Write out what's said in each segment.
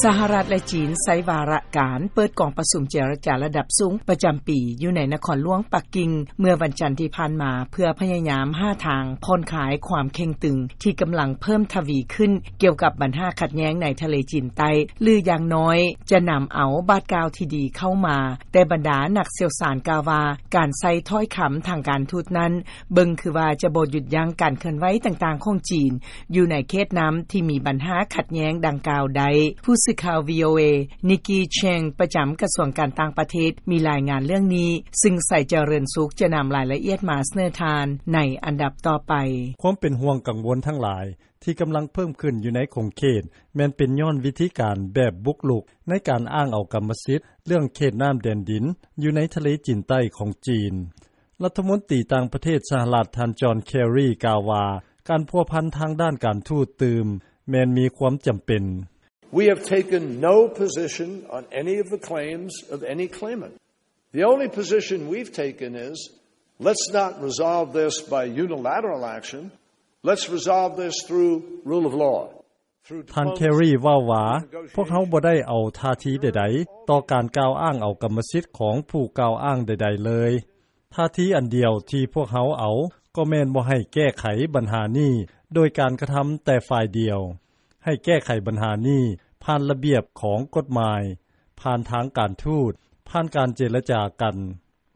ສະຫະລັດ ແລະ ຈີນ ໃຊ້ວາລະການເປີດກອງປະຊຸມເຈລະຈາລະດັບສູງປະຈຳປີ ຢູ່ໃນນະຄອນຫຼວງປັກກິ່ງ ເມື່ອວັນຈັນທີ່ຜ່ານມາ ເພື່ອພະຍາຍາມຫາທາງຜ່ອນຄາຍຄວາມເຄັ່ງຕຶງ ທີ່ກຳລັງເພີ່ມທະວີຂຶ້ນ ກ່ຽວກັບບັນຫາຂັດແຍ້ງໃນທະເລຈີນໃຕ້ ຫຼື ຢ່າງນ້ອຍຈະນຳເອົາບາດກ້າວທີ່ດີເຂົ້າມາ. ແຕ່ບັນດານັກຊ່ຽວຊານກ່າວວ່າ ການໃຊ້ຖ້ອຍຄຳທາງການທູດນັ້ນ ເບິ່ງຄືວ່າຈະບໍ່ຢຸດຢັ້ງການເຄື່ອນໄຫວຕ່າງໆຂອງຈີນ ຢູ່ໃນເຂດນ້ຳທີ່ມີບັນຫາຂັດແຍ້ງດັ່ງກ່າວໄດ້. ຜູ້ສື່ຂ່າວ ວີໂອເອ ນິກກີ ເຊງ ປະຈຳກະຊວງການຕ່າງປະເທດ ມີລາຍງານເລື່ອງນີ້ ຊຶ່ງ ໄຊຈະເລີນສຸກ ຈະນຳລາຍລະອຽດມາສະເໜີທ່ານໃນອັນດັບຕໍ່ໄປ. ຄວາມເປັນຫ່ວງກັງວົນທັງຫຼາຍ ທີ່ກຳລັງເພີ່ມຂຶ້ນຢູ່ໃນຂົງເຂດ ແມ່ນເປັນຍ້ອນວິທີການແບບບຸກລຸກ ໃນການອ້າງເອົາກຳມະສິດເລື່ອງເຂດນ້ຳແດນດິນ ຢູ່ໃນທະເລຈີນໃຕ້ຂອງຈີນ. ລັດຖະມົນຕີຕ່າງປະເທດສະຫະລັດ ທ່ານ ຈອນ ເຄຣີ ກ່າວວ່າ ການພົວພັນທາງດ້ານການທູດຕື່ມ ແມ່ນມີຄວາມຈຳເປັນ. We have taken no position on any of the claims of any claimant. The only position we've taken is, let's not resolve this by unilateral action. Let's resolve this through rule of law. ທ່ານ ເຄຣີ ເວົ້າວ່າ ພວກເຮົາບໍ່ໄດ້ເອົາທ່າທີໃດໆ ຕໍ່ການກ່າວອ້າງເອົາກຳມະສິດຂອງຜູ້ກ່າວອ້າງໃດໆເລີຍ. ທ່າທີອັນດຽວທີ່ພວກເຮົາເອົາ ກໍແມ່ນບໍ່ໃຫ້ແກ້ໄຂບັນຫານີ້ໂດຍການກະທຳແຕ່ຝ່າຍດຽວ, ໃຫ້ແກ້ໄຂບັນຫານີ້ຜ່ານລະບຽບຂອງກົດໝາຍ, ຜ່ານທາງການທູດ, ຜ່ານການເຈລະຈາກັນ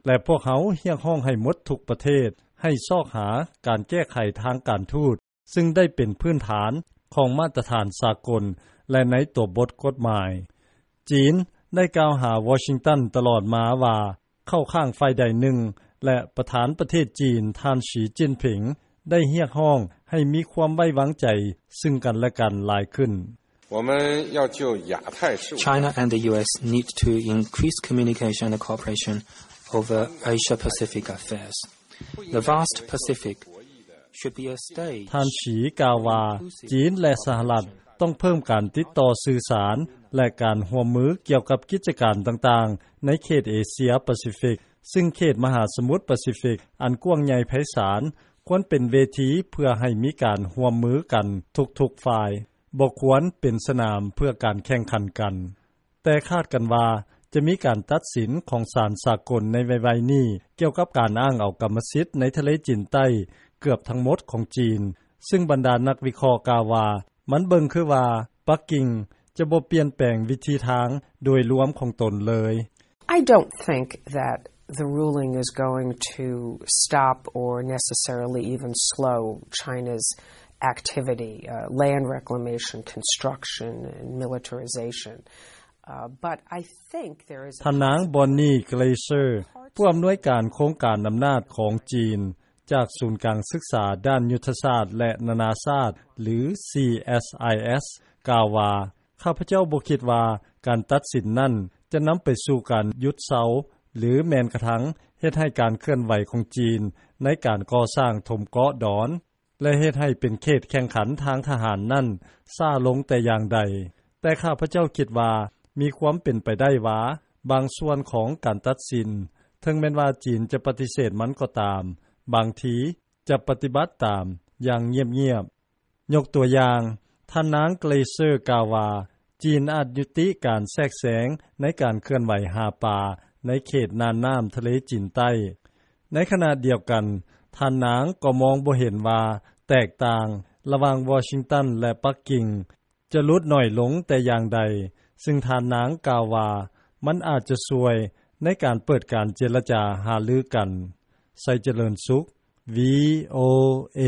ແລະ ພວກເຮົາຮຽກຮ້ອງໃຫ້ໝົດທຸກປະເທດ ໃຫ້ຊອກຫາການແກ້ໄຂທາງການທູດ ຊຶ່ງໄດ້ເປັນພື້ນຖານຂອງມາດຕະຖານສາກົນ ແລະ ໃນຕົວບົດກົດໝາຍ. ຈີນໄດ້ກ່າວຫາວໍຊິງຕັນຕະຫຼອດມາວ່າ ເຂົ້າຂ້າງຝ່າຍໃດໜຶ່ງ ແລະ ປະທານປະເທດຈີນ ທ່ານ ສີ ຈິ້ນຜິງ ໄດ້ຮຽກຮ້ອງໃຫ້ມີຄວາມໄວ້ວາງໃຈຊຶ່ງກັນແລະກັນຫຼາຍຂຶ້ນ. 「China and the U S need to increase communication and cooperation over Asia-Pacific affairs. The vast Pacific should be a stage." ທ່ານ ສີ ກ່າວວ່າ ຈີນ ແລະ ສະຫະລັດ ຕ້ອງເພີ່ມການຕິດຕໍ່ສື່ສານ ແລະ ການຮ່ວມມືກ່ຽວກັບກິດຈະການຕ່າງໆ ໃນເຂດເອເຊຍປາຊີຟິກ ຊຶ່ງເຂດມະຫາສະໝຸດປາຊີຟິກອັນກວ້າງໃຫຍ່ໄພສານ ຄວນເປັນເວທີເພື່ອໃຫ້ມີການຮ່ວມມືກັນທຸກໆຝ່າຍ, ບໍ່ຄວນເປັນສະໜາມເພື່ອການແຂ່ງຂັນກັນ. ແຕ່ຄາດກັນວ່າຈະມີການຕັດສິນຂອງສານສາກົນໃນໄວໆນີ້ ກ່ຽວກັບການອ້າງເອົາກຳມະສິດໃນທະເລຈີນໃຕ້ເກືອບທັງໝົດຂອງຈີນ, ຊຶ່ງບັນດານັກວິເຄາະກ່າວວ່າ ມັນເບິ່ງຄືວ່າປັກກິ່ງຈະບໍ່ປ່ຽນແປງວິທີທາງໂດຍລວມຂອງຕົນເລີຍ. I don't think that the ruling is going to stop or necessarily even slow China's activity, uh, land reclamation, construction, and militarization. Uh, but I think there is a ທ່ານນາງ ບອນນີ ເກຣເຊີ ຜູ້ອຳນວຍການໂຄງການອຳນາດຂອງຈີນ ຈາກສູນກາງສຶກສາດ້ານຍຸດທະສາດ ແລະ ນານາຊາດ ຫຼື CSIS ກ່າວວ່າ ຂ້າພະເຈົ້າບໍ່ຄິດວ່າການຕັດສິນນັ້ນຈະນຳໄປສູ່ການຢຸດເຊົາ ຫຼື ແມ່ນກະທັງເຮັດໃຫ້ການເຄື່ອນໄຫວຂອງຈີນໃນການກໍ່ສ້າງຖົມເກາະດອນ ແລະ ເຮັດໃຫ້ເປັນເຂດແຂ່ງຂັນທາງທະຫານນັ້ນຊ້າລົງແຕ່ຢ່າງໃດ. ແຕ່ຂ້າພະເຈົ້າຄິດວ່າມີຄວາມເປັນໄປໄດ້ວ່າ ບາງສ່ວນຂອງການຕັດສິນ, ເຖິງແມ່ນວ່າຈີນຈະປະຕິເສດມັນກໍຕາມ, ບາງທີຈະປະຕິບັດຕາມຢ່າງງຽບໆ. ຍົກຕົວຢ່າງ, ທ່ານນາງ ເກຣເຊີ ກ່າວວ່າ ຈີນອາດຍຸຕິການແຊກແຊງໃນການເຄື່ອນໄຫວຫາປາໃນເຂດນ່ານນ້ຳທະເລຈີນໃຕ້. ໃນຂະນະດຽວກັນ, ທ່ານນາງກໍມອງບໍ່ເຫັນວ່າແຕກຕ່າງລະຫວ່າງວໍຊິງຕັນ ແລະ ປັກກິ່ງ ຈະຫຼຸດໜ້ອຍລົງແຕ່ຢ່າງໃດ, ຊຶ່ງທ່ານນາງກ່າວວ່າ ມັນອາດຈະຊ່ວຍໃນການເປີດການເຈລະຈາຫາລືກັນ. ໄຊຈະເລີນສຸກ ວີໂອເອ.